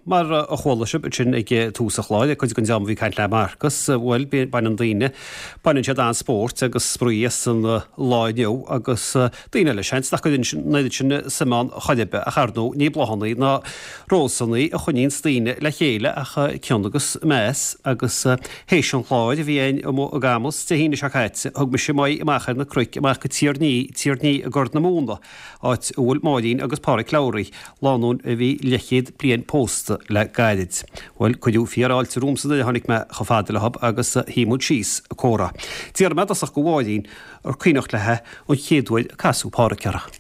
Mar a chuala sibh ansin ag tús an chláir, cuid den dream a bhí ag caint le Marcus, bhuel, baineann daoine, baineann siad an-spórt agus spraoi as an lá inniu agus daoine eile, seans nach gcuireann an oiread sin suim ann chor ar bith, ach ar ndóigh ní bláthanna ná rósanna a choinníonns daoine le chéile ach cion agus meas agus théis an chláir a bhí againn amuigh i gCamus Dé hAoine seo caite, thug mise m'aghaidh amach ar na cnoic amach go Tír an Fhí, Tír an Fhí i gCorr na Móna. áit a bhfuil Máirín agus Páraic Lowry, lánúin a bhí leathchéad bliain pósta le gairid. Bhuel, cuireadh fíorfháilte romhamsa nuair a tháinig mé chomh fada leo agus shuigh muid síos ag comhrá. D'fhiafraigh mé i dtosach de Mháirín ar cuimhneach léi an chéad uair a casadh Páraic uirthi.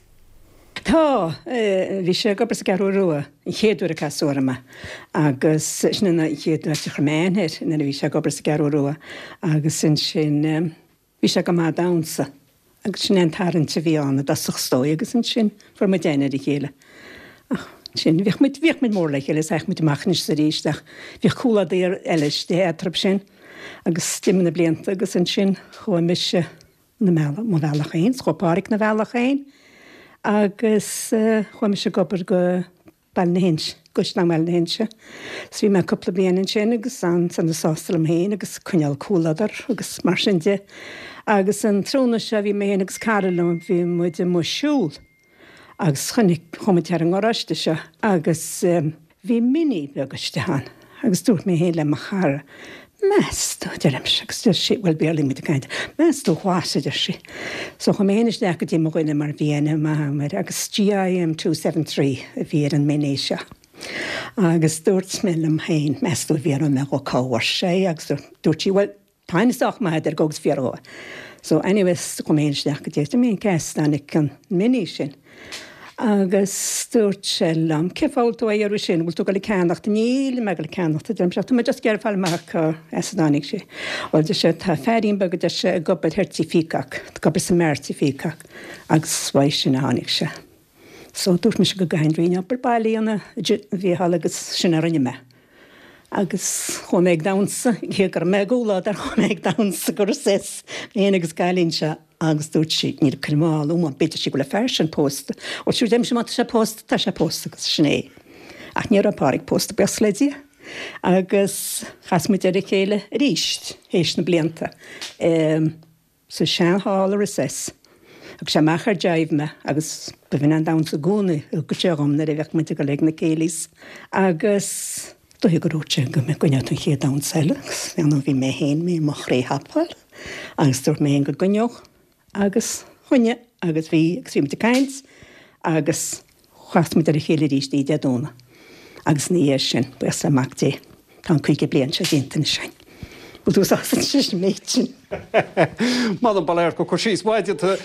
Tá, bhí sé ag obair sa gCeathrú Rua an chéad uair a casadh orm é agus sin an chéad áit a chuir mé aithne air nuair a bhí sé ag obair sa gCeathrú Rua agus ansin Bhí sé go maith ag damhsa agus sin é an tarraingt a bhí ann i dtosach is dóigh agus ansin fuair muid aithne ar a chéile. Ach ansin bhíodh muid, bhíodh muid mór le chéile is théadh muid amach anois is arís ach bhíodh comhluadar eile istigh eatarthu sin agus d'imigh na blianta agus ansin chuaigh mise na mbealach, mo bhealach féin, 's chuaigh Páraic 'na bhealach féin agus chuaigh mise ag obair go Baile na hInse, Caisleán Bhaile na hInse. So bhí mé cúpla bliain ansin agus an-sona sásta liom féin agus coinneáil comhluadar agus mar sin de. Agus an tráthnóna seo bhí mé féin agus cara liom, bhí muid amuigh ag siúl agus chonaic, chuaigh muid thar an ngaráiste seo agus bhí Mini beag istigh ann agus dúirt mé féin le mo chara, Meas tú, a deirimse, agus deir sí, bhuel, Béarla muid ag caint, meas tú what, a deir sí. So chuaigh mé féin isteach go dtí mo dhuine mar bhí aithne maith agam air agus GIM 273 a bhí ar an Mini seo. Agus dúirt mé liom féin, meas tú an bhfiafróidh mé dhó cá bhfuair sé é agus dúirt sí, bhuel, tá aithne sách maith agat air, gabh agus fiafraigh dhó. So anyways, chuaigh mé féin isteach go dtí, dúirt mé, cé as a dtáinig an Mini sin? Agus dúirt sé liom, cén fáth a bhfuil tú á iarraidh sin, bhfuil tú ag dul ag ceannacht? Níl mé ag dul ag ceannacht, a deirimse, ach tá mé just ag iarraidh fáil amach cá as a dtáinig sé. Bhuel, deir sé, tá feairín beag, a deir sé, ag obair thoir Tí Peacock, ag obair sa mbeár Tí Peacock, agus uaidh sin a tháinig sé. So dúirt mise go gcaithfinn roinnt obair baile a dhéanamh, a Mhícheáil, agus sin a rinne mé. Agus chuaigh mé ag damhsa, cé go raibh mé i gcomhluadar, chuaigh mé ag damhsa go Recess, mé féin agus an cailín seo. Agus dúirt sí, níl ag cur mall uaim, b'fhéidir sí go bhfuil an fear sin pósta. Ó sure deirimse má tá sé pósta, tá sé pósta agus sin é. Ach ní raibh Páraic pósta, buíochas le Dia. Agus chas muid ar a chéile arís théis na blianta sa sean-halla Recess. Thug sé amach ar jive mé agus b'in an damhsa i gcónaí a thugadh sé dhom nuair a bheadh muid ag dul ag na céilís. Agus dóigh gur dhúirt sé go gcoinneodh tú an chéad damhsa eile agus ar ndóigh bhí mé féin mé i mo chroí thapáil agus dúirt mé féin go gcoinneodh agus choinnigh agus bhí agus bhí muid ag caint agus chas muid ar a chéile arís oíche Dé Domhnaigh agus ina dhiaidh sin, buíochas le Mac Dé, tá an 50 bliain seo déanta anois againn. Bhfuil tú sásta leis an méid sin? M'anam ba léir go cur síos maith déanta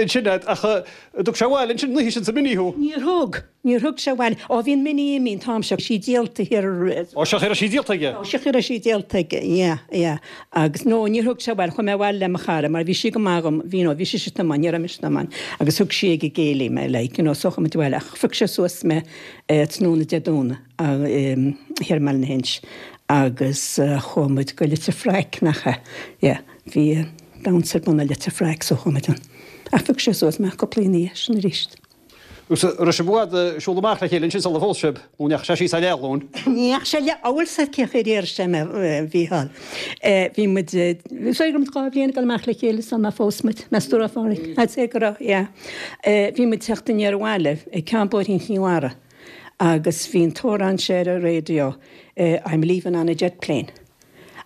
ansin agat ach an dtug sé abhaile ansin an oíche sin sa Mini thú? Níor thug! Níor thug sé abhaile. Ó bhí an Mini imithe an t-am seo, sí díolta thiar. Ó sea, cha raibh sí díolta aige. Ó sea, cha raibh sí díolta aige, yeah, yeah. Agus, no, níor thug sé abhaile, chuaigh mé abhaile le mo chara mar bhí sí go maith dhom, bhí, you know, bhí sise ag tiomáint, ní raibh mise ag tiomáint, agus thug sí ag an gcéilí mé, like, you know, so chuaigh muid abhaile ach phioc sé suas mé tráthnóna Dé Domhnaigh thiar i mBaile na hInse agus chuaigh muid go Leitir Fraic, nach ea, yeah, bhí damhsa ar bun i Leitir Fraic so chuaigh muid ann. Ach phioc sé suas mé cúpla ina dhiaidh sin arís. Agus an raibh sibh i bhfad ag siúl amach le chéile ansin sula phós sibh, nó an ndeachaigh sé síos ar leathghlúin? Ní dheachaigh sé leath, bhfuil 's agat cén chaoi ar iarr sé mé, a Mhícheáil. Bhí muid, is dóigh go raibh muid 2 bhliain ag dul amach le chéile sula phós muid, meas tú an raibh, a Phádraig? I'd say go raibh, yeah. Bhí muid ag teacht aniar abhaile ag ceann bóithrín Chinn Mhara agus bhí an t-amhrán seo ar an raidió, I'm leaving on a jet plane.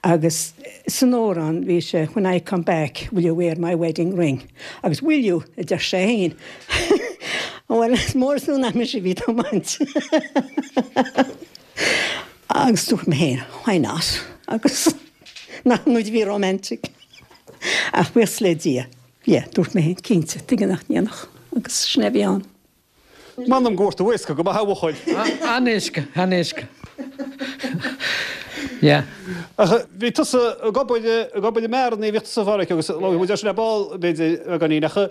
Agus san amhrán bhí sé When I come back will you wear my wedding ring? Agus Will you? a deir sé féin. Bhuel, is mór is fiú nach mise a bhí ag tiomáint. Agus dúirt mé féin, why not? Agus nach muid a bhí romantic. Ach buíochas le Dia, yeah, dúirt mé féin, cinnte, tuige nach ndéanfadh? Agus sin é a bhí ann. M'anam go bhfuair tú éasca go maith a bhuachaill. An-éasca, an-éasca. Yeah. Ach bhí tusa ag obair, ag obair i mbeáranna, bhíodh tusa a Pháraic agus labhair muid air sin ar ball b'fhéidir beagáinín ach an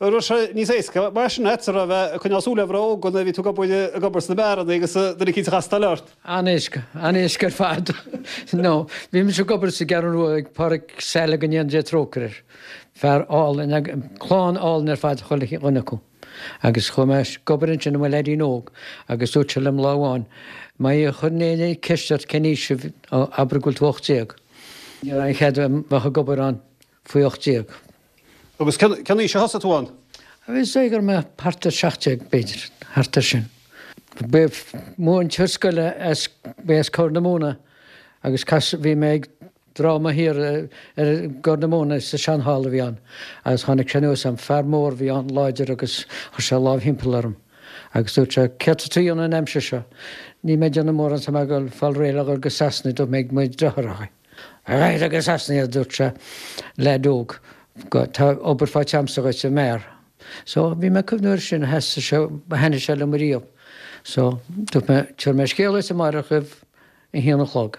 raibh sé níos éasca mar sin agat a bheith ag coinneáil súil ar mhná óga nuair a bhí tú ag obair, ag obair sna beáranna agus duine eicínt a chastáil ort? An-éasca, an-éasca ar fad. No, bhí mise ag obair sa gCeathrú Rua ag Páraic Saile go ndéana Dia trócaire air. Fear álainn, clann álainn ar fad chuile dhuine acu. Agus chuaigh mé ag obair ansin i mo leaidín óg agus dúirt sé liom lá amháin. Má chuireann éinne ceist ort cén aois sibh, abair go bhfuil tú 18. Ní raibh aon chead a bheith ag obair ann faoi 18. Agus cén aois a thosaigh tú ann? Is dóigh go raibh mé thart ar 17, b'fhéidir, thart ar sin. Ba mhúinteoir scoile as, ba as Corr na Móna agus cas, bhí mé ag dráma thiar ar gCorr na Móna sa seanhalla a bhí ann agus tháinig sé anuas orm, fear mór a bhí ann, láidir agus chuir sé a lámh thimpeall orm agus dúirt sé, céard tá tú a dhéanamh an aimsir seo? Níl mé ag déanamh mórán, tá mé ag dul fáil réidh le dhul go Sasana, dúirt mé ag mo dheartháireacha. Raghaidh go Sasana, a dúirt sé, leaid óg, tá obair faighte a'msa dhuit i mbeár. So, bhí mé ag cuimhniú air sin, sheas sé, thaitnigh sé liom ariamh. So, dúirt mé, tabharfaidh mé scéala dhuit amárach roimh a haon a chlog.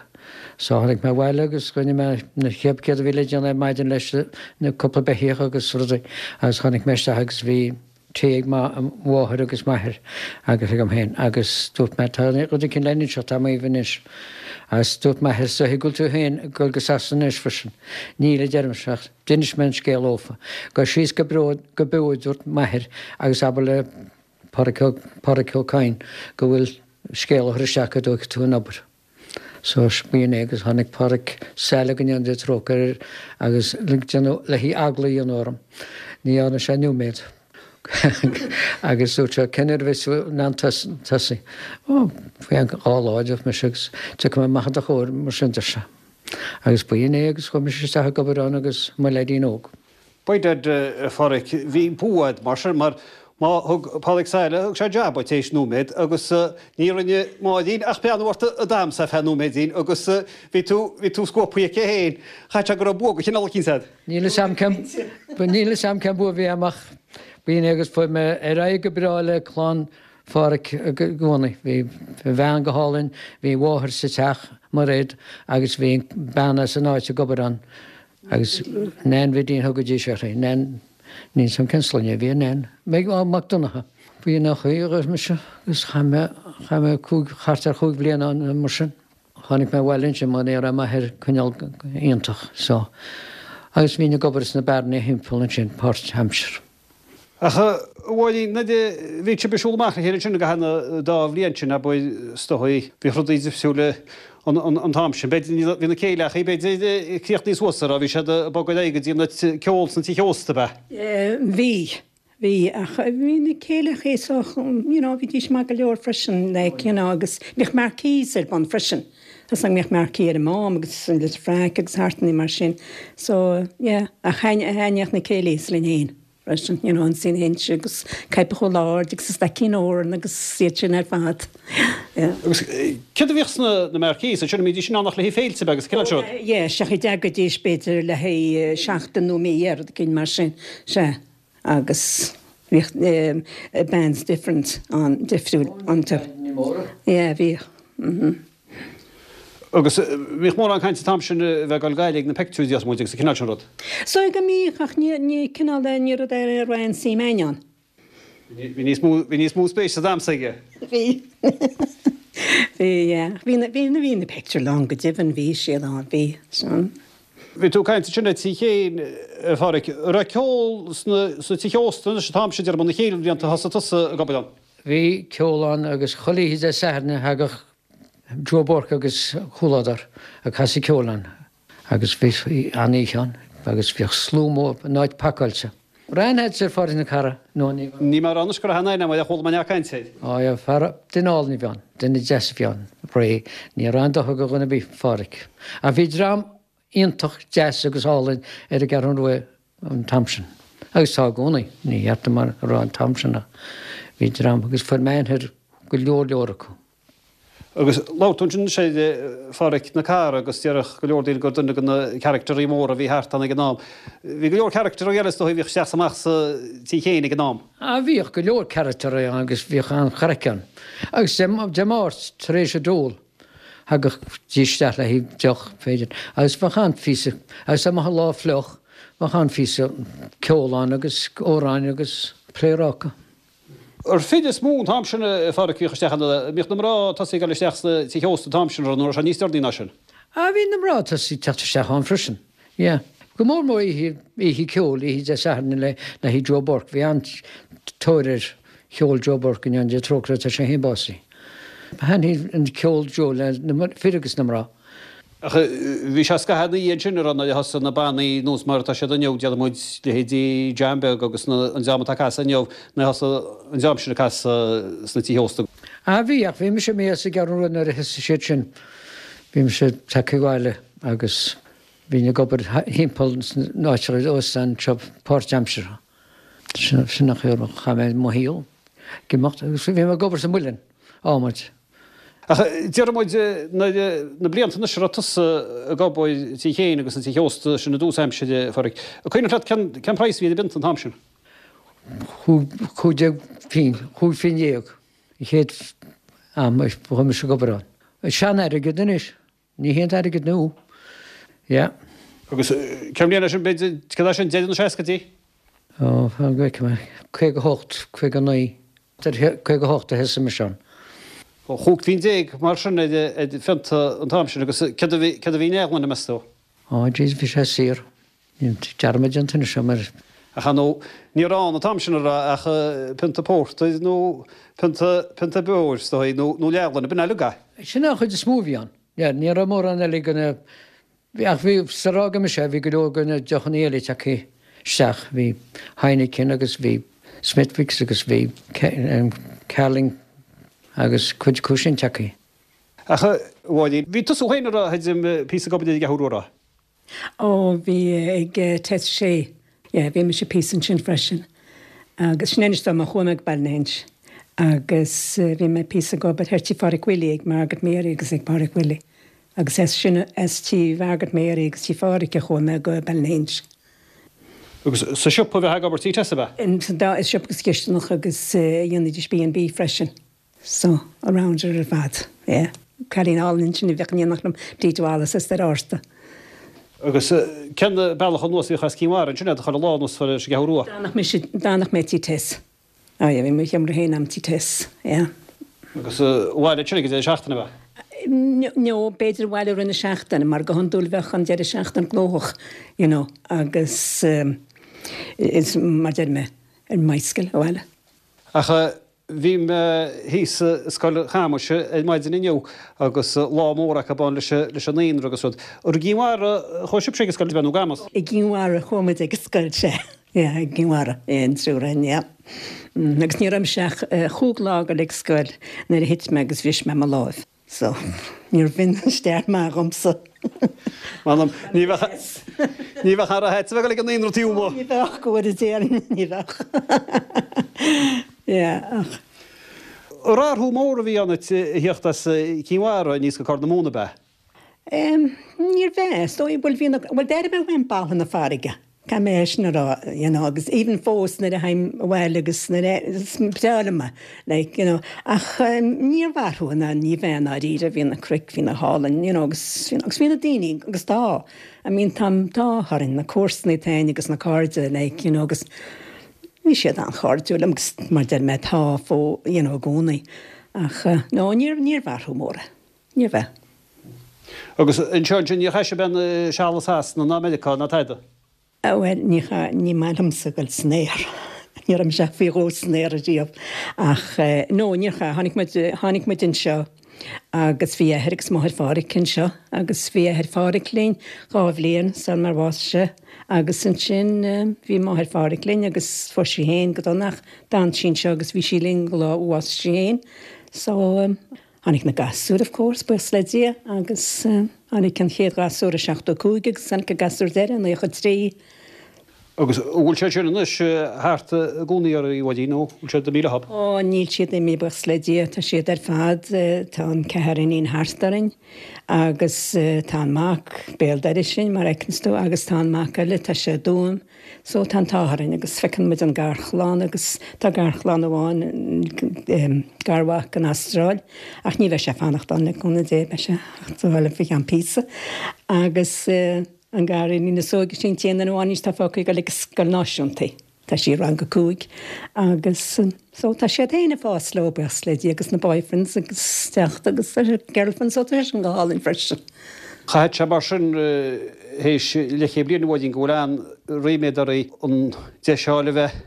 So, tháinig mé abhaile agus rinne mé na chéad céard a bhí le déanamh ar maidin leis na cúpla beithíoch agus rudaí agus tháinig mé isteach agus bhí tae ag mo mháthair agus m'athair agus agam féin agus dúirt mé tá rud éicint le n-inseacht agam dhaoibh anois agus dúirt m'athair is dóiche go bhfuil tú féin ag dul go Sasana anois freisin. Níl a deirimse ach d'inis mé an scéal dhófa. Gabh síos go Beo go Beo a dúirt m'athair agus abair le Pádraic Ó Pádraic Ó Cadhain go bhfuil scéal a chur isteach go dtógfaidh tú an obair. So b'in é agus tháinig Pádraic Saile go ndéana Dia trócaire air agus le déanamh le haghaidh eagla a dhéanamh orm. Ní dhearna sé nóiméad agus dúirt sé cén uair a bheas tú in ann tosaí? Ó, faoi cheann dhá lá a dúirt mise agus tiocfaidh mé amach i do chomhair mar sin deir sé. Agus b'in é agus chuaigh mise isteach ag obair ann agus mo leaidín óg. By dad, a Pháraic, bhí bua a'd mar sin, mar má thug Pádraig Saile, thug sé jab duit théis nóiméad agus ní rinne Máirín ach breathnú ort an t-am so ar feadh nóiméidín agus bhí tú, bhí tú scuabtha aici féin. Chaithfeadh sé go raibh bua de chineál eicínt a'd. Níl 'fhios a'm cén, níl 'fhios a'm cén bua a bhí a'm ach b'in é agus fuair mé ar aghaidh go breá le clann Pháraic i gcónaí. Bhí a bhean go hálainn, bhí a mháthair sa teach, Mairéad, agus bhí bean as an áit ag obair ann, Agus Nan Bhidín thugaidís uirthi, Nan, níl 'fhios a'm cén sloinne a bhí ar Nan, Meg, á, Mac Donncha. B'in an chaoi a raibh mise agus chaith mé, chaith mé cúig, thart ar chúig bhliana ann mar sin. Tháinig mé abhaile ansin mar ní raibh m'athair cineál iontach so agus bhínn ag obair sna bearnaí thimpeall ansin páirt-aimsir. Ach a Mháirín, nuair a bhí sibh ag siúl amach le chéile ansin i gcaitheamh na dá bhliain sin, abair, is dóigh, bhíodh rudaí difriúil an t-am sin. B'fhéidir, bhí na céilí, b'fhéidir, críochnaithe suas, an raibh, bhí siad ag bogadh ar aghaidh go dtí an ceol sna tithe ósta, ab ea? Bhí, bhí, ach bhí na céilí so, you know, bhídís maith go leor freisin, like, you know, agus bhíodh marquees ar bun freisin. Tá 's agam go mbíodh marquee ar an Mám agus an Leitir Fraic agus thart mar sin. So, yeah, ach thaitníodh na céilís linn fhéin freisin, you know, Ionsaí na hInse agus Coipeach Chúil Aird agus an Staicín Órán agus iad sin ar fad. Yeah. Agus céard a bhíodh sna na marquees ansin, an mbídís in ann ach le haghaidh féilte beaga agus an cineál seo? Oh, yeah, sea, d'fhagaidís b'fhéidir le haghaidh seachtain nó mí rud éigin mar sin, sea. Agus bhíodh bands different ann, difriúil iontu. Yeah, bhíodh. Mhm. Agus bhíodh mórán cainte an t-am sin a bheith ag dul gaire ag na pictiúir déarfaidh muid agus an cineál sin rud. Is dóigh go mbíodh ach ní, ní cineál de, ní rud é a raibh aon suim a'inn ann. Bhí níos mó, bhí níos mó spéis sa damhsa aige. Bhí. Bhí, yeah. Bhí na, bhí na, bhí na pictiúir lán go deimhin, bhí siad ann, bhí. Sin. Bhí tú ag caint ansin ar Tigh Chéin, a Pháraic. An raibh ceol sna tithe ósta anois an t-am sin, déarfainn, na chéad bhlianta a thosaigh tusa ag obair ann? Bhí ceol ann agus chuile oíche Dé Sathairn thagadh Joe Burke agus a chomhluadar ag casadh ceoil ann agus bhí an-oíche ann agus bhíodh slua mór, an áit pacáilte. Raibh aithne agat ar Phádraic na Cara nó ní raibh? Níl mé ag rá anois go raibh aithne agam air ach chuala mé neart cainte air. Á yeah, fear, duine álainn a bhí ann, duine deas a bhí ann, réidh, ní raibh aon dochar do dhuine ar bith, Phádraic. Ach bhí dream iontach deas agus álainn ar an gCeathrú Rua an t-am sin. Agus tá i gcónaí, ní cheart dom a rá an t-am sin ach bhí dream agus fuair mé aithne ar go leor leor acu. Agus labhair tú ansin anois ar Pháraic na Cara agus déarfadh go leor daoine gur duine de na caractairí móra a bhí thart ann ag an am. Bhí go leor caractairí eile is dóigh a bhíodh isteach is amach sa Tigh Chéin ag an am. Ah bhíodh go leor caractairí ann agus bhíodh an-chraic ann. Agus Dé Dé Máirt tar éis a dól thagadh dís isteach le haghaidh deoch b'fhéidir agus bheadh an-phíosa agus dá mbeadh an lá fliuch bheadh an-phíosa ceol ann agus amhráin agus pléaráca. Ar fir is mó an t-am sin a Pháraic a bhíodh isteach ann, an mbíodh na mná tosaithe ag dul isteach sna tithe ósta an t-am sin, nó raibh sé níos deireanaí ná sin? Ah bhí na mná tosaithe ag teacht isteach ann freisin, yeah. Go mór mór oíche, oíche ceoil, oíche Dé Sathairn le le haghaidh Joe Burke, bhí an-tóir ar cheol Joe Burke go ndéana Dia trócaire air tá sé féin básaithe. Thaitnigh an ceol Joe le na fir agus na mná. Ach bhí sé scaitheamh ina dhiaidh sin, an raibh, nuair a thosaigh na bannaí nós mar atá siad inniu, déarfaidh muid leithéidí John Beag agus na, an dream atá ag casadh inniu, nuair a thosaigh an dream sin ag casadh sna tithe ósta. Ah bhí, ach bhí mise imithe as an gCeathrú Rua nuair a thosaigh siad sin. Bhí mise tagtha abhaile agus bhínn ag obair thimpeall sna áiteacha óstán anseo páirtaimseartha. Sin an chaoi a chaith mé mo shaol ag imeacht agus bhí mé ag obair sa muileann, adhmaid. Ach déarfaidh muid nuair, na blianta anois a raibh tusa ag obair tí féin agus sna tithe ósta sin i dtús aimsire, a Phádraig, an cuimhneach leat cén, cén praghas a bhí ar an bpionta an t-am sin? 15 phingin, 15 phingin an chéad am a chuaigh mise ag obair ann. Sean-airgead anois. Ní hé an t-airgead nua. Yeah. Agus cén bhliain é sin, b'fhéidir, cad é sin, deireadh na seascaidí? Ó, fan go bhfeicfidh mé. 58, 59. 58 a thosaigh mise ann. 15 phingin mar sin ar phionta an t-am sin agus céard a bhí, céard a bhí in leathghloine, meas tú? Ó, jeez, bhí sé saor. Níl dearmad déanta anois agam air. Ach ar ndóigh, ní raibh ann an t-am sin, an raibh, ach pionta pórtair nó pionta, pionta beoir, is dóigh, nó, nó leathghloine, b'in uilig é. Sin é an chuid is mó a bhí ann. Yeah, ní raibh mórán eile de na, ach bhí, sar a fhága mise, bhí go leor de na deochanna eile tagtha isteach. Bhí Heineken agus bhí Smithwick's agus bhí Carling agus cuid acu sin tagtha. Ach, a Mháirín, bhí tusa féin, an raibh, a píosa ag obair ar an gCeathrú Rua, an raibh? Ó, bhí ag Tess Shea. Yeah, bhí mise píosa ansin freisin. Agus sin anois dom a chuaigh mé go Ballynahinch. Agus bhí mé píosa ag obair thoir tí Phádraic Willie ag Margaret Mary agus ag Pádraic Willie. Agus as sin, as tí Mhargaret Mary agus tí Phádraic a chuaigh mé go Ballynahinch. Agus sa siopa a bheifeá ag obair tí Tess ab ea? Sa dá, i siopa agus cisteanach agus dhéanaidís B and B freisin. So, around ar fad, yeah. Cailín álainn ansin a bhíodh in éineacht liom, Bríd Wallace as Doire Fhárta. Agus cén bealach anuas a bhíodh as Cinn Mhara ansin chuile lá anuas leis an gCeathrú Rua? D'fhanadh mise, d'fhanadh mé tí Tess. Oh yeah, bhí mo sheomra féin a'm tí Tess, yeah. Agus abhaile ansin ag an deireadh seachtaine ab ea? No, b'fhéidir abhaile i rith na seachtaine, mar go hiondúil bheadh an deireadh seachtaine gnóthach, you know, agus is mar deir mé, ar an mbicycle abhaile. Ach bhí mé thíos i Scoil Chamuis ar maidin inniu agus lá mór acu ann leis an naíonra agus rud. Ar i gCinn Mhara a chuaigh sibhse ag an scoil, nó Camus? I gCinn Mhara a chuaigh muid ag an scoil, sea. Yeah, i gCinn Mhara, yeah, an triúr againn, yeah. Agus ní raibh mise ach chúig lá ag dul ag scoil nuair a thit mé agus bhris mé mo láimh. So, níorbh in an stair maith dhomsa. M'anam, ní bheadh, ní bheadh ara a bheith ag dul ag an naíonra taobh amuigh. Ní bheadh, go bhfóire Dia orainn, ní bheadh. Yeah, ach. Athrú mór a bhí ann duit a thíocht as Cinn Mhara aníos go Corr na Móna, ab ea? Níorbh ea, is dóigh, bhuel bhí na, bhuel d'airigh mé uaim boladh na farraige, caithfidh mé é sin a rá, you know, agus even fós nuair a théim abhaile agus nuair a, is breá liom é, like, you know, ach níorbh athrú ná ní bheith i ndáiríre, bhí na cnoic, bhí na hálainn, you know, agus, agus bhí na daoine, agus tá, I mean tá an t-ádh orainn, na comharsanaí atá againn agus na cairde, like, you know, agus bhí siad an-chairdiúil liom agus mar deir mé tá fó, you know, i gcónaí, ach no, níorbh, níorbh athrú mór é. Níorbh ea. Agus anseo ansin, níor chaith sibh aon seal i Sasana ná Meiriceá ná tada? Bhuel, ní chaith, ní maith liomsa dul san aer. Ní raibh mise ach faoi dhó san aer ariamh. Ach, no, níor chaith. Tháinig muid, tháinig muid anseo agus bhí athair agus máthair Phádhraic anseo agus bhí athair Phádhraic linn dhá bhliain sar mar bhásaigh sé agus ansin bhí máthair Phádhraic linn agus fuair sí féin go dona ach d'fhan sí anseo agus bhí sí linn go lá a bhásaigh sí féin. So, Tháinig na gasúir, of course, buíochas le Dia, agus tháinig an chéad ghasúr i 75 agus tháinig an gasúr deiridh i 93. Agus an bhfuil siad sin anois thart i gcónaí oraibh, a Mháirín, nó bhfuil siad imithe leob? Ó, níl siad imithe, buíochas le Dia, tá siad ar fad, tá an ceathar iníon thart orainn agus tá an mac béal dorais linn, mar a fheiceanns tú, agus tá an mac eile, tá sé i dTuaim. So tá an t-ádh orainn agus feiceann muid an garchlann agus tá garchlann amháin, garmhac in Astráil ach ní bheidh sé ag fanacht ann le cúnamh Dé, beidh sé ag teacht abhaile faoi cheann píosa. Agus an gariníon is óige sin an t-aon duine amháin anois atá fágtha ag dul ag scoil náisiúnta. Tá sí i rang a cúig agus so tá siad féin ag fás leo buíochas le Dia agus na boyfriends agus teacht agus girlfriends so tá sé sin go hálainn freisin. Chaithfeadh sé mar sin théis leathchéad bliain a Mháirín go bhfuil an-ríméad oraibh an deis a fháil a bheith.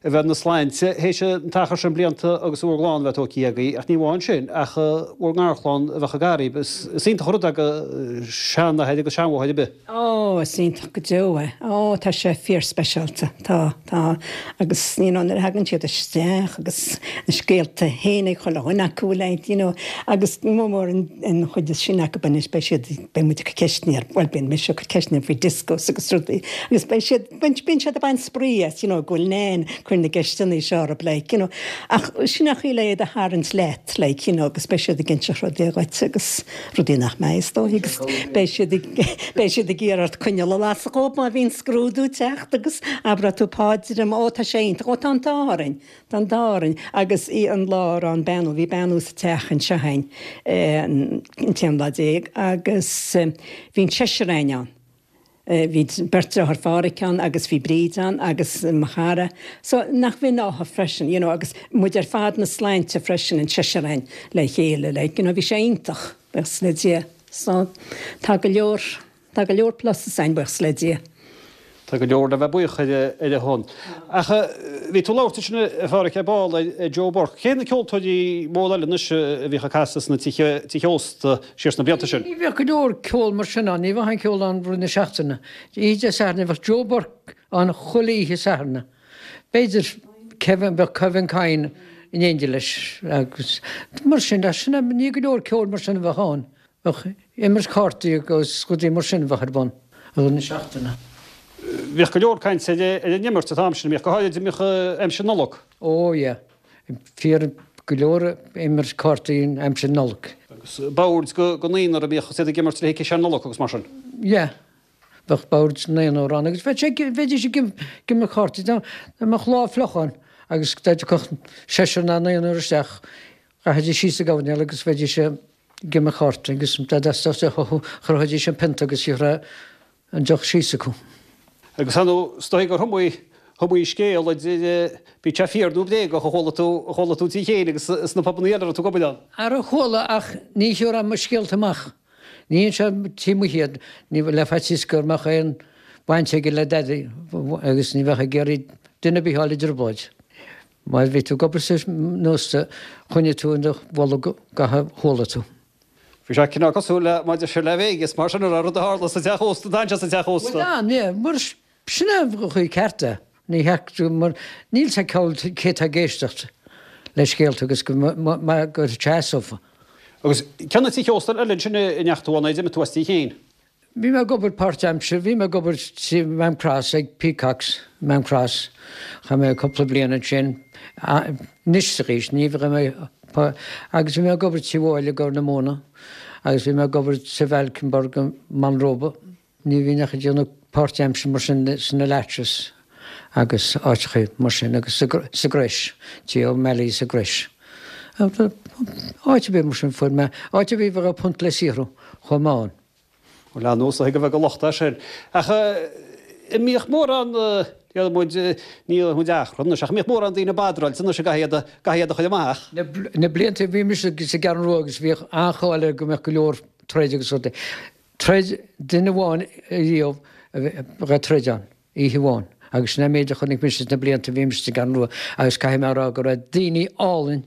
a bheith ina sláinte théis an t-achar sin blianta agus bhur gclann a bheith tógtha agaibh, ach ní amháin sin, ach bhur ngarchlann a bheith ag araibh. Is iontach an rud é do sheanathair agus seanmháthair ar bith. Ó, is iontach go deo é. Ó, tá sé fíorspeisialta. Tá, tá. Agus, you know, nuair a thagann siad isteach agus na scéalta féin ag chuile dhuine acu, like, you know, agus mór mór an chuid is sine acu anois, beidh siad, beidh muid ag cur ceisteanna ar, bhuel, bíonn mise ag cur ceisteanna faoi discos agus rudaí, agus beidh siad, bíonn siad ag baint spraoi as, you know, go bhfuil Nan ag cur na gceisteanna seo orthu, like, you know. Ach sin an chaoi le iad a tharraingt leat, like, you know, agus beidh siad ag inseacht rudaí dhuit agus rudaí nach mbeidh, is dóigh, agus beidh siad ag, beidh siad ag iarraidh ort coinneal a lasadh dhóibh má bhíonn scrúdú ag teacht agus abróidh tú páidir, ó tá sé iontach, ó tá an t-ádh orainn, tá an t-ádh orainn. Agus í an lá a raibh an beannú, bhí beannú sa teach anseo againn an t-aon lá déag agus bhí an seisear againn ann. Bhí beirt deartháir Phádhraic ann agus bhí Bríd ann agus mo chara. So nach bh'in ádh freisin, you know, agus muid ar fad na sláinte freisin, an seisear againn le chéile, like, you know, bhí sé iontach, buíochas le Dia. So tá go leor, tá go leor pluses againn, buíochas le Dia. Tá go leor le bheith buíoch ar a shon. Ach bhí tú ag labhairt ansin a Phádhraic ar ball ar Joe Burke. Cé na ceoltóirí móra eile anois a bhíodh ag casadh sna tithe ósta siar sna blianta sin? Ní bheadh go leor ceol mar sin ann, ní bheadh aon cheol ann rith na seachtaine. Oíche Dé Sathairn bheadh Joe Burke ann chuile oíche Sathairn. B'fhéidir Kevin, bheadh Kevin Kyne in éindí leis agus mar sin, sin ní go leor ceoil mar sin a bheadh ann. Bheadh imirt cártaí agus rudaí mar sin a bheadh ar bun i rith na seachtaine. Bhíodh go leor cainte ar an imirt an t-am sin, bhíodh go háirid a mbíodh aimsir Nollag. Ó yeah, fíor go leor imirt cártaí in aimsir Nollag. Agus boird go naonúr a bhíodh is iad ag imirt le ciseán Nollag agus mar sin. Yeah, bheadh boird naonúr ann agus bheadh sé, bheidís ag imirt cártaí, dá mbeadh lá fliuch ann agus dá dtiocfadh seisear ná naonúr isteach, rachaidís síos sa gcoirnéal agus bheidís ag ag imirt cártaí agus dá dteastódh deoch uathu chroithfidís an pionta agus gheobhaidh an deoch síos acu. Agus ar ndóigh, is dóigh gur iomaí, iomaí scéal idir, bíodh sé fíor nó bréagach, a chuala tú, a chuala tú tú féin agus sna pubannaí eile a raibh tú ag obair ann. Ara chuala ach ní thiúrfainn mo scéalta amach. Ní inseoinn taobh amuigh iad, ní, le faitíos go mbeadh aon bhaint aige le dadaí agus ní bheadh ag iarraidh duine ar bith a fháil i dtrioblóid. Má bhí tú ag obair san ósta, choinnigh tú i do bholg gach a chuala tú. Bhí sé cineál cosúil le mar a deir siad le Vegas, mar sin a raibh rud a tharla sa teach ósta, d'fhan sé sa teach ósta. Bhuel, an ea, mar sin é an chaoi ceart é. Ní theacht mar níl sé ceol cé tá ag éisteacht le scéalta agus go mbeadh go seasófa. Agus cé na tithe ósta eile ansin a ndeachaigh tú ann, a d'imigh tú as tí féin? Bhí mé ag obair páirt-aimsire, bhí mé ag obair sa Maam Cross ag Peacocks, Maam Cross. Chaith mé cúpla bliain ansin. Anois arís, ní bheidh mé, agus bhí mé ag obair Tí Mhóille i gCorr na Móna agus bhí mé ag obair sa Valkenburg i Manróba. Ní bhínn ach ag déanamh páirt-aimsire mar sin sna Latchis agus áiteachaí mar sin agus sa gCrois, Tí O'Malley sa gCrois. Áit ar bith mar sin fuair mé, áit ar bith a raibh punt le saothrú, chuaigh mé ann. Bhuel, ar ndóigh, is dóigh go bheadh a locht air sin. Ach an mbíodh mórán, déarfaidh muid, ní déarfaidh muid achrann anois, ach an mbíodh mórán daoine badráilte anois a gcaithfidh iad a, gcaithfidh iad a chur amach? Na blianta a bhí mise sa gCeathrú Rua agus bhíodh an-cháil air go mbeadh go leor troid agus rudaí. Troid, duine amháin riamh a raibh troid ann, oíche amháin, agus sin é an méid a chonaic mise sna blianta a bhí mise sa gCeathrú Rua agus caithfidh mé a rá go raibh daoine álainn,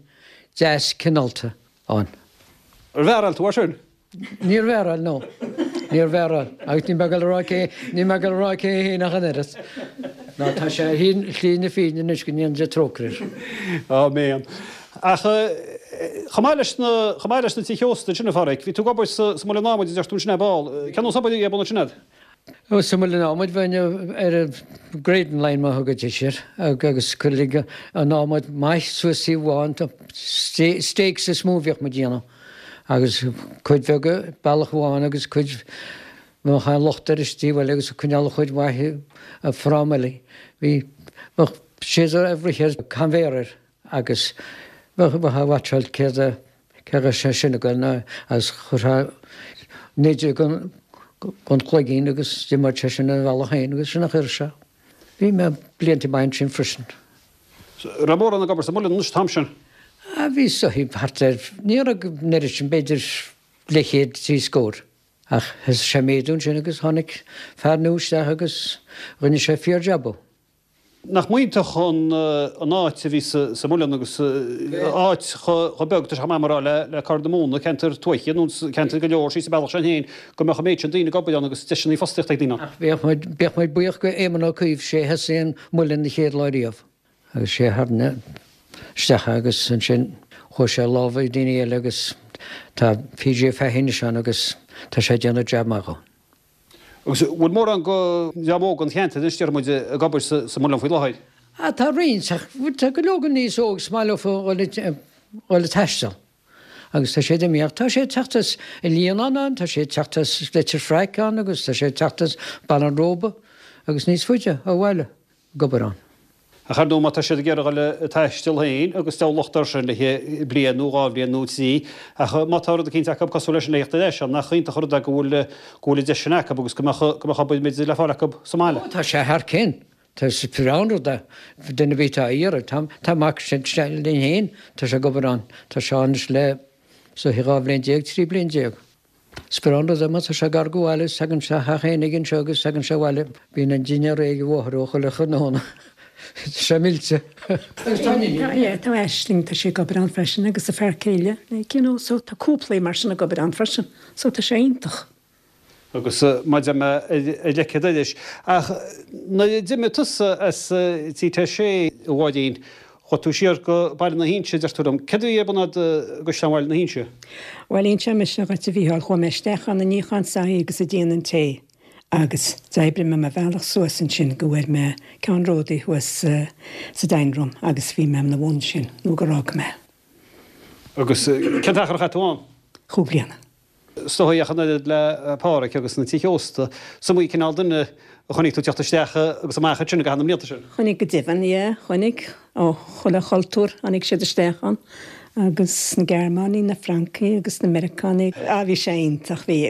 deas, cineálta ann. Ar mhearáil tú air sin? Níor mhearáil, no. Níor mhearáil. Agus níl mé ag dul a rá cé, níl mé ag dul a rá cé é féin ach an oiread. Ná tá sé ar shlí na fírinne anois go ndéana Dia trócaire air. Áiméan. Ach chomh maith leis na, chomh maith leis na tithe ósta ansin, a Pháraic, bhí tú ag obair sa, sa Muileann Adhmaid a deir tú ansin ar ball. Cén nós obair a bhí ar bun ansin a'd? Ó, sa Muileann Adhmaid bheinn ar an grading line mar a thugaidís air agus cuireadh an adhmad maith suas taobh amháin, stakes is mó a bhíodh muid a dhéanamh agus cuid bheag bealach amháin agus cuid bheadh an locht air is taobh eile agus ag coinneáil an chuid mhaith i fráma eile. Bhí, bheadh siad ag rith ar conveyor air agus bheadh, bheadh a watcháil céard a, cé raibh sé sin ag goil ná agus chuirfeá nidir gon, gon chloigín agus d'imíodh sé sin ar a bhealach féin agus sin a chuir sé. Bhí mé blianta maith ansin freisin. Raibh mórán ag obair sa muileann anois an t-am sin? Ah bhí is dóichí thart ar, ní raibh an oiread sin, b'fhéidir leathchéad, trí scór. Ach thosaigh sé ag méadú ansin agus tháinig fear nua isteach agus rinne sé fíor-jab. Nach iontach an áit a bhí sa Muileann agus áit chomh beag, tá sé chomh maith mar rá le Corr na Móna, ceantar tuaithe nó ceantar go leor síos an bealach sin féin, go mbeadh an méid sin daoine ag obair ann agus deiseanna fostaíochta ag daoine ann. Ach bheadh muid, bheadh muid buíoch go Éamon Ó Cuív, sé a thosaigh an Muileann na chéad lá riamh. Agus sé a tharraing isteach é agus ansin chuaigh sé i lámha daoine eile agus tá PJ Fahey anois ann agus tá sé ag déanamh jab maith dhó. Agus an bhfuil mórán go dream óg an cheantair anois, déarfaidh muid, ag obair sa Muileann faoi láthair? Ah, tá roinnt, ach tá go leor go níos óg is maith leofa dhul dhul ag taisteal. Agus tá siad imithe, ach tá sé ag teacht as an Líonán ann, tá sé ag teacht as Leitir Fraic ann agus tá sé ag teacht as Baile an Róba agus níos faide ó bhaile ag obair ann. Ach ar ndóigh má tá siad ag iarraidh dhul ag taisteal féin agus deabhal locht air sin le haghaidh bliain nó dhá bhliain nó trí, ach má tá rud eicínt acu cosúil leis sin le theacht ar ais ann, nach iontach an rud é go bhfuil go bhfuil an deis sin acu agus go mbeadh go mbeadh obair b'fhéidir le fáil acu sa mbaile. Ó tá sé thar cionn. Tá is breá an rud é. Duine ar bith atá á iarraidh. Tá tá mac linn féin, tá sé ag obair ann. Tá sé ann anois le is dóiche 12 bhliain, 13 bliain. Is breá an rud é má tá sé gar go bhaile is tagann sé theach éinigh anseo agus tagann sé abhaile. Bíonn an dinnéar réidh ag a mháthair ó chuile thráthnóna. Tá sé millte. Agus tá an iníon. Yeah, tá Aisling, tá sí ag obair ann freisin agus a fear céile, like, you know, so tá cúpla mar sin ag obair ann freisin. So tá sé iontach. Agus mar a deir mé ar leic an dorais. Ach nuair a d'imigh tusa as T6, a Mháirín, Chuaigh tú siar go Baile na hInse, deir tú liom. Céard a bhí ar bun agat i gCaisleán Bhaile na hInse? Bhuel, inseoidh mise dhuit, a Mhícheáil, chuaigh mé isteach ann ag níochán soithí agus ag déanamh an tae agus d'oibrigh mé mo bhealach suas ansin go bhfuair mé ceannródaí thuas sa dining room agus bhí mé ina bhun sin nó gur fhág mé. Agus cén t-achar a chaith tú ann? Chúig bliana. Is dóigh ach an oiread le Páraic agus na tithe ósta, is iomaí cineál duine a chonaic tú ag teacht isteach agus amach ansin i gcaitheamh na mblianta sin. Chonaic go deimhin, yeah, chonaic. Ó chuile chultúr tháinig siad isteach ann agus na Gearmánaigh, na Francaigh agus na Meiriceánaigh. Ah bhí sé iontach, bhí.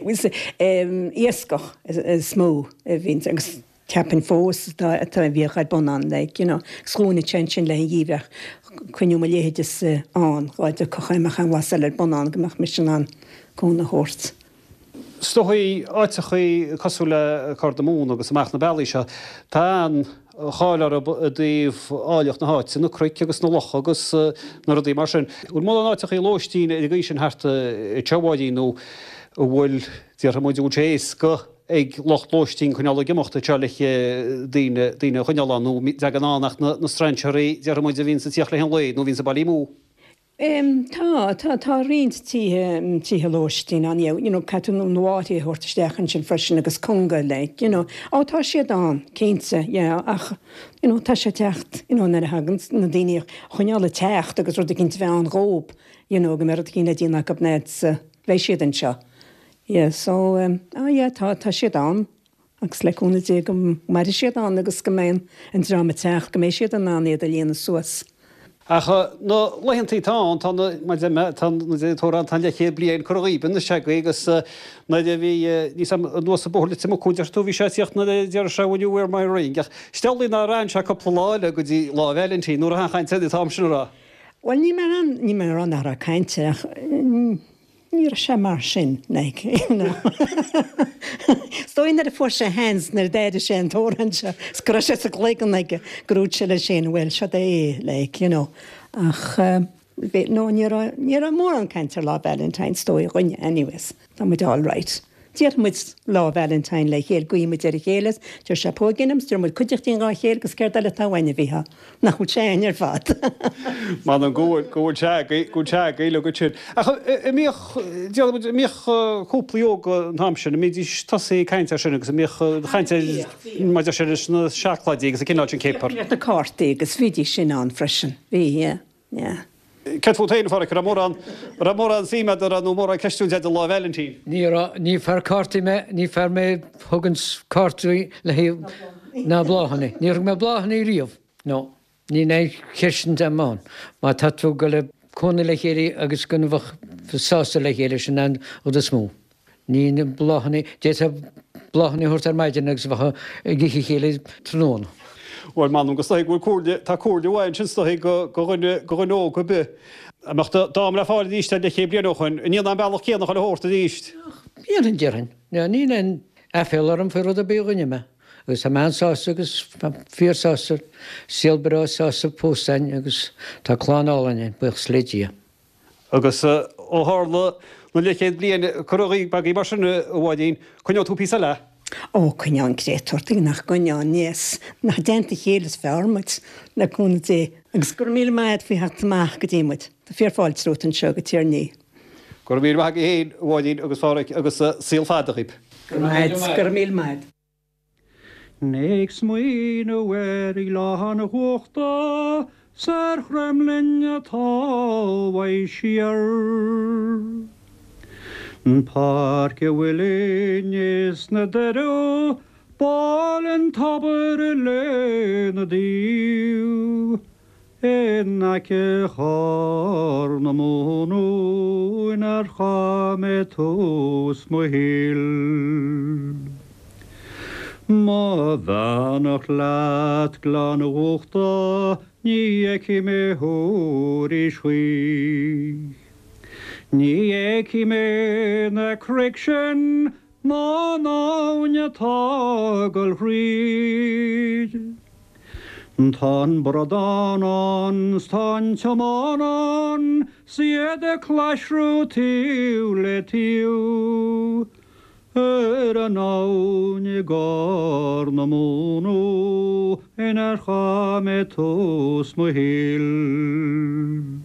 Iascach is mó a bhí agus Cheapfainn fós atá atá a bhíodh ar bun ann like you know agus dhúnadh sé ansin le an gheimhreadh coinniú mo leithéidese ann dhá dtiocfadh aon mbeadh aon bhlas eile ar bun ann go mbeadh mise in ann cúnamh a thabhairt. Is dóigh áiteachaí cosúil le Corr na Móna agus amach na bealaí seo, tá an-cháil orthu i dtaobh áilleacht na háite, na cnoic agus na locha agus na rudaí mar sin. Bhfuil mórán áiteachaí lóistín ar an gcaoi sin thart anseo, a Mháirín, nó an bhfuil, déarfaidh muid, an bhfuil sé éasca ag lucht lóistín coinneáil ag imeacht anseo le daoine, daoine a choinneáil ann nó an dtagann ann ach na strainséirí, déarfaidh muid, a bhíonns ag tíocht le haghaidh an lae nó a bhíonns ag baile amú. Em, tá, tá, tá roinnt tithe, tithe lóistín ann, yeah, you know, caithfidh tú na báthaí a thabhairt isteach ansin freisin agus cunga, like, you know. Ó, tá siad ann, cinnte, yeah, ach, you know, tá sé ag teacht, you know, nuair a thagann na daoine a choinneáil ag teacht agus rud eicínt a bheith ann dhób, you know, go mbeidh rud eicínt le déanamh acu na, beidh siad anseo. Yeah so um ah yeah tá tá siad ann agus le cúnamh Dé go mairfidh siad ann agus go mbeidh an an dream ag teacht go mbeidh siad in ann iad a líonadh suas. Ach na laethantaí atá ann tá na mar deir mé tá na deir an t-amhrán tá an leathchéad bliain curtha dhíob anois agaibh agus nuair a bhí níos am anuas an bóthar Leitir Mucú deir tú bhí sé ag tíocht nuair a deir sé will you wear my ring ach is amhlaidh nár fhan sé cúpla lá eile go dtí Lá Vailintín nuair a tháinig an t-am sin a rá. Bhuel níl mé in ann níl mé ag rá nach raibh caint air ach Ní raibh sé mar sin, like, you know. Is dóigh nuair a fuair sé a sheans, nuair a d'airigh sé an t-amhrán seo, is go raibh sé sa gcloigeann aige, gur dhúirt sé leis féin, bhuel, seo é, like, you know. Ach, bhí, no, ní raibh, ní raibh mórán caint ar Lá Valentine, is dóigh, againne, anyways. Tá muid all right. Déarfaidh muid Lá Valentine le chéile, guífidh muid ar a chéile, deir sé póigín liom, deir muid cuideachtín dhá chéile agus céard eile atá uainn a Mhícheáil? Nach bhfuil sé a'inn ar fad? M'anam go bhfuil, go bhfuil sé agaibh, go bhfuil sé agaibh uilig ansin. Ach an mbíodh, déarfaidh muid, an mbíodh cúplaí óga an t-am sin, an mbídís tosaithe ag caint air sin agus an mbíodh an chaint ar, mar deir sé, leis na seacláidí agus an cineál sin céapar? Bhíodh na cártaí agus bhídís sin ann freisin, bhí, yeah. Yeah. Céard fút féin, a Pháraic? An raibh mórán, an raibh mórán suim agat, an raibh, nó mórán ceistiúint agat ar Lá Vailintín? Ní raibh, ní fear cártaí mé, ní fear mé a thuganns cártaí le haghaidh, ná bláthanna. Níor thug mé bláthanna riamh, no. Níl aon cheist agam ann. Má tá tú ag dul ag cónaí le chéile agus go mbeadh sásta le chéile, sin an rud is mó. Ní na bláthanna, d'fhéadfá bláthanna a thabhairt ar maidin agus bheifeá ag ithe a chéile tráthnóna. Bhuel, m'anam go is dóigh go bhfuil comhairle, tá comhairle mhaith ansin is dóigh go dhuine, go dhuine óg ar bith. Dá mbeadh dám le fáil arís leathchéad bliain ó shoin, an ndéanfá an bealach céanna chuile shórt arís. Ach, dhéanfainn, déarfainn. Níl aon aiféala orm faoi rud ar bith a rinne mé. Agus tá mé an-sásta agus fíor-sásta, saol breá sásta fós againn agus tá clann álainn againn, buíochas le Dia. Agus ó tharla na leathchéad bliain curtha agaibh mar sin, a Mháirín, coinneoidh tú píosa eile? Ó, coinneoidh an créatúr, tuige nach gcoinneoinn, yes, nach i dteannta a chéile is fearr muid, le cúnamh Dé. Agus go raibh míle maith agat faoi theacht amach go dtí muid. Tá fíor fáilte romhat anseo go Tír an Fhia. Go raibh míle maith agaibh féin, a Mháirín agus a Phádhraic, agus saol fada dhaoib. Go raibh maith agat, go raibh míle maith agat. Ag smaoineamh ar Ghleann Uchta 's ar Chromghlinn atá uaidh siar. Páirc a' Mhuilinn is na Doireadh, b'áil an tobar lena dtaobh. In aice Chorr na Móna inar chaith mé tús mo shaoil. Mo bheannacht leat Gleann Uchta ní fheicfidh mé thú arís choíche. Ní fheicfidh mé na cnoic sin ná an abhainn atá ag dul thríd. Tá an bradán ann 's tá an tiomán ann 's iad ag claisriú taobh le taobh ar an abhainn i gCorr na Móna inar chaith mé tús mo shaoil.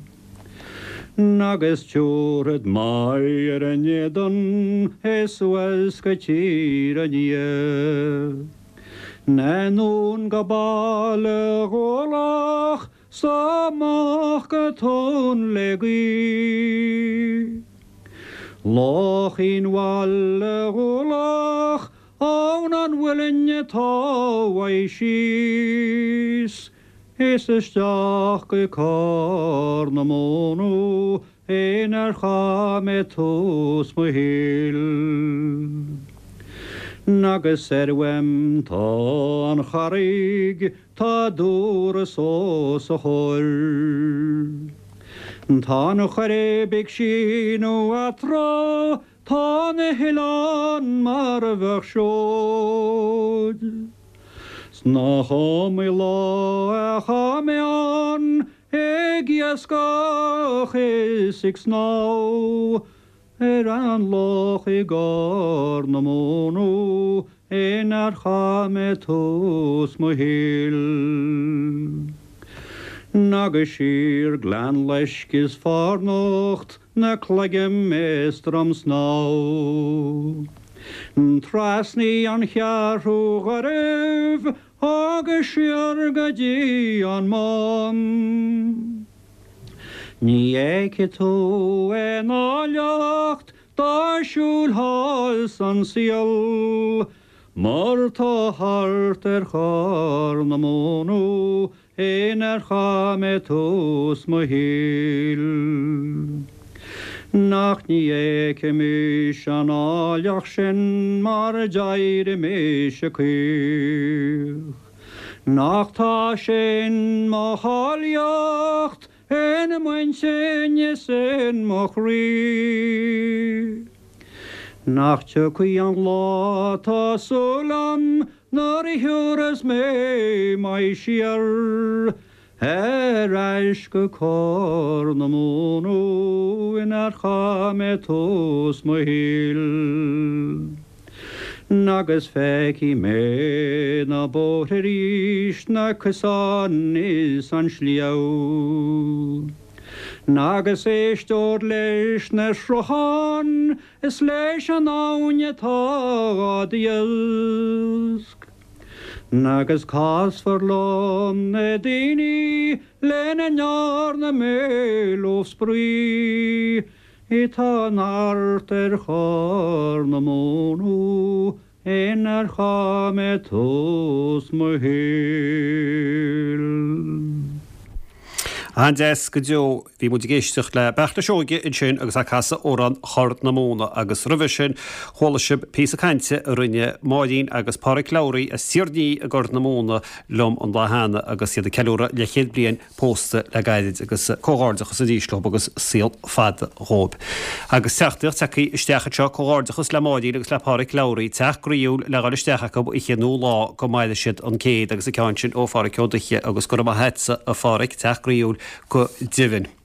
Agus tiúrfad m'aghaidh ar a n-éadan is suas go Tír an Fhia. Anonn go Baile Dhúlach 's amach go Tóin le Gaoith. Lochín Bhaile Dhúlach abhainn an mhuilinn atá uaidh síos. Is isteach go Corr na Móna inar chaith mé tús mo shaoil. Agus soir uaim tá an Charraig, tá Dúras os a chomhair. Tá an Choirib ag síneadh eatarthu, tá na hoileáin mar a bheadh seoid. 'S nach iomaí lá a chaith mé ann ag iascach is ag snámh ar an loch i gCorr na Móna inar chaith mé tús mo shaoil. Agus siar Gleann Loisc is Fornocht na Cloigim is Drom Snámha. Trasnaí an Cheathrú Ghairbh agus siar go dtí an Mám. Ní fheicfidh tú aon áilleacht dá siúlfá san saol mar tá thart ar Chorr na Móna inar chaith mé tús mo shaoil. Nach ní fheicfimis an áilleacht sin mar d'éirigh mise caoch. Nach tá sin mo cháilíocht in m'intinn is in mo chroí. Nach tiocfaidh an lá tá súil a'm nuair a thiúrfas mé m'aghaidh siar ar ais go Corr na Móna inar chaith mé tús mo shaoil. Agus feicfidh mé na bóithre arís, na cosáin is an sliabh. Agus éisteod leis na srutháin is leis an abhainn atá á dtaosc. Agus casfar liom na daoine lena ndearna mé leo spraoi. Atá thart ar Chorr na Móna inar chaith mé tús mo shaoil. An-deas go deo. Bhí muid ag éisteacht le Beartla Seoige ansin agus é ag casadh amhrán Chorr na Móna agus roimhe sin chuala sibh píosa cainte a rinne Máirín agus Páraic Lowry as Tír an Fhí i gCorr na Móna liom an lá cheana agus iad ag ceiliúradh leathchéad bliain pósta le gairid agus comhghairdeachas arís leo agus saol fada dhóibh. Agus teachtaireacht tagtha isteach anseo, comhghairdeachas le Máirín agus le Páraic Lowry, teach groíúil le dhul isteach acu oíche nó lá go maire siad an céad agus an ceann sin ó Pháraic Ó Duiche agus go raibh maith agatsa a Pháraic, teach groíúil go deimhin.